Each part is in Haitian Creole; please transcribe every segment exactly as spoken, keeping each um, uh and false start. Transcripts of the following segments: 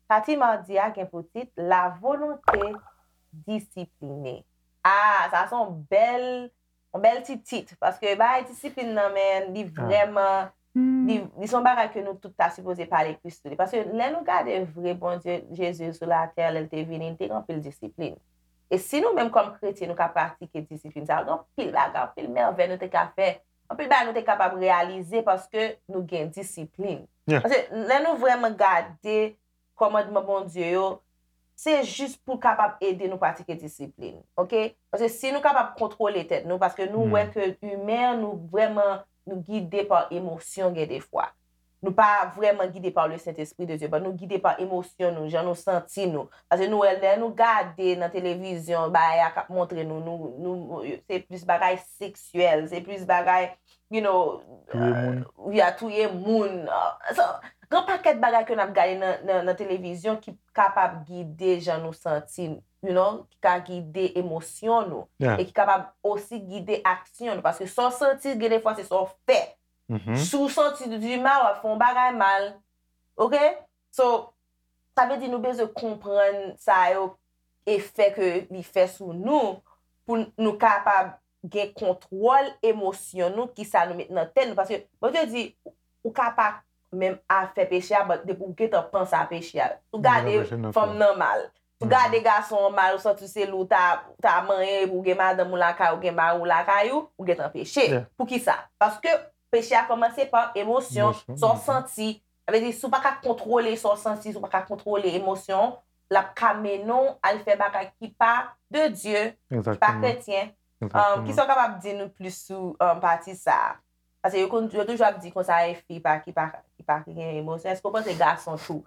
Pati madi a gen pou tit La volonté disciplinée. Ah, sa se yon bèl, yon bèl ti tit, paske bagay disiplin nan, men li vrèman, li, li se yon bagay ke nou tout ta sipoze pale plis sou li. Paske lè nou gade vre Bondye, Jezi sou latè, lè l te vini, li te gen anpil disiplin. E si nou menm kòm kretyen, nou ka pratike disiplin sa, gen anpil bagay, anpil mèvèy nou te ka fè, anpil bagay nou te kapab reyalize paske nou gen disiplin. Paske lè nou vrèman gade kòmandman Bondye yo, se jis pou kapab ede nou pratike disiplin, oke? Paske si nou kapab kontwole tèt nou, paske nou wè ke imen an, nou vrèman, nou gide pa emosyon gen defwa. Nou pa vrèman gide pa le Saint-Esprit de Dieu, but nou gide pa emosyon nou, jan nou santi nou. Paske nou wè, lè nou gade nan televizyon, bagay a k ap montre nou, nou, nou, se plis bagay seksyèl, se plis bagay, you know, Touye moun. Ya touye moun. So, gen pakèt bagay ke n ap gade nan, nan, nan televizyon ki kapab gide jan nou santi, you know, ki ka gide emosyon nou. E ki kapab osi gide aksyon nou. Paske sa w santi, gen defwa se sa w fè. Si w santi w di mal, w ap fè yon bagay mal. Oke? So, sa vle di nou bezwen konprann sa yo, efè ke li fè sou nou, pou nou kapab gen kontwòl emosyon nou, kisa nou met nan tèt nou. Paske Bondye di, ou ka pa menm a fè peche a, but depi w gentan panse a peche a. Si w gade fanm nan mal, si w gade gason an mal, ou santi se li w ta, ta manyen, epi w gen madanm ou lakay ou, gen mari w lakay ou, ou gentan peche. Poukisa? Paske peche a kòmanse pa emosyon, sa w santi. Sa vle di, si w pa ka kontwole sa w santi, si w pa ka kontwole emosyon w, l ap ka mennen w al fè bagay ki pa de Dye, ki pa kretyen. Um, kisa w kapab di nou plis sou, um, pati sa a? Paske yo konn, yo toujou ap di konsa, e fi pa, ki pa, ki pa gen emosyon. Èske w panse gason tou?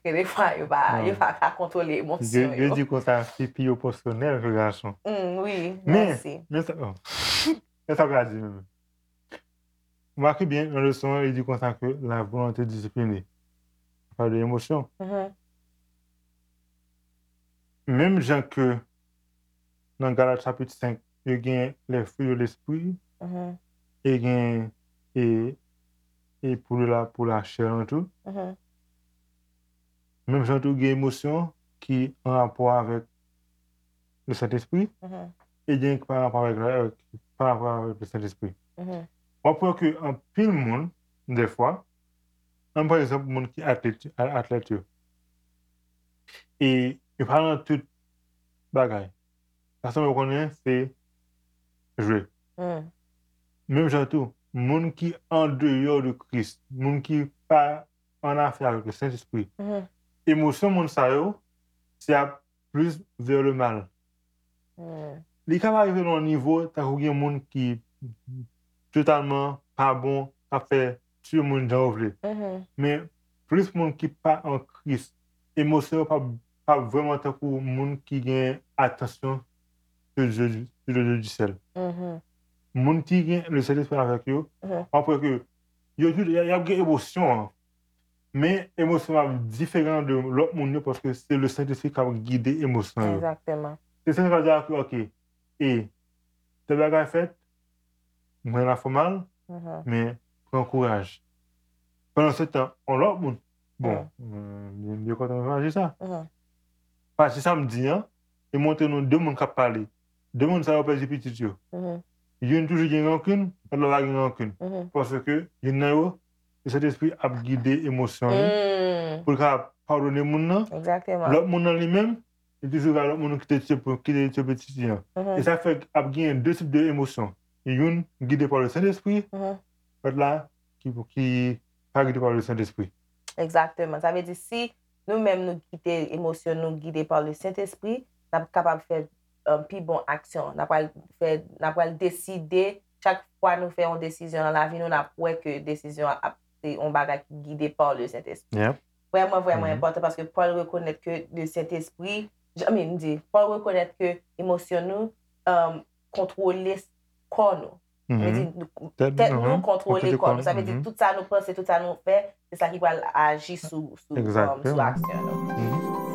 Gen defwa yo pa, yo pa ka kontwole emosyon yo. Yo di konsa, fi pi emosyonèl ke gason. Mm, wi, mèsi. Men sa, men sa w ka di menm. Remake byen, nan leson an, li di konsa ke la volonté disciplinée. Li pale de emosyon. Menm jan ke nan Galat chapit senk, yo gen les fruits de l'esprit, e gen e, e pou la, pou lachè an tou. Menm jan tou gen emosyon ki an rapò avèk le Sentespri, e gen ki pa rapò avèk, pa rapò avèk le Sentespri. W ap wè ke anpil moun, dèfwa, ann pa egzanp, moun ki atlèt, atlèt yo, e yo pa nan tout bagay. Sa sanble w konnen se jwe. Menm jan tou, moun ki andeyò de Kris, moun ki pa an afè avèk le Sentespri, emosyon moun sa yo, se ap plis vers le mal. Li ka pa rive nan yon nivo tankou gen moun ki totalman pa bon, k ap fè tiye moun jan yo vle. Men plis moun ki pa an Kris, emosyon yo p ap, p ap vrèman tankou moun ki gen atansyon de Dieu, de Dieu du ciel. Moun ki gen le Sentespri avèk yo, w ap wè ke yo tout, y ap gen emosyon an. Men emosyon ap diferan de lòt moun yo paske se le Sentespri k ap gide emosyon yo. Egzakteman. Se Sentespri ap di a ke, oke, e tèl bagay fèt, mwen la fè mal, men pran kouraj. Pandan se tan, yon lòt moun, bon, mwen byen kontan mwen aji sa. Pati sa m di an, e montre nou de moun k ap pale. De moun sa yo pèdi pitit yo. Youn toujou gen rankin, lòt la pa gen rankin. Paske youn nan yo, le Sentespri ap gide emosyon li pou l ka padone moun nan. Lòt moun nan li menm, li toujou gen lòt moun ki te tiye, ki te tiye pitit li an. E sa fè ap gen de tip de emosyon. Youn gide pa le Sentespri, lòt la ki, ki pa gide pa le Sentespri. Egzakteman. Sa vle di si nou menm nou kite emosyon nou gide pa le Sentespri, n ap kapab fè, um, pi bon aksyon. N ap pral fè, n ap pral deside, chak fwa nou fè yon desizyon nan lavi nou, n ap wè ke desizyon an ap, se yon bagay ki gide pa le Sentespri. Vrèman, vrèman enpòtan paske Pòl rekonèt ke le Sentespri, I mean, m di, Pòl rekonèt ke emosyon nou, um, kontwole kò nou. Sa vle di, tèt nou kontwole kò nou. Sa vle di, tout sa nou panse, tout sa nou fè, se sa ki pral aji sou, sou, um, sou aksyon nou.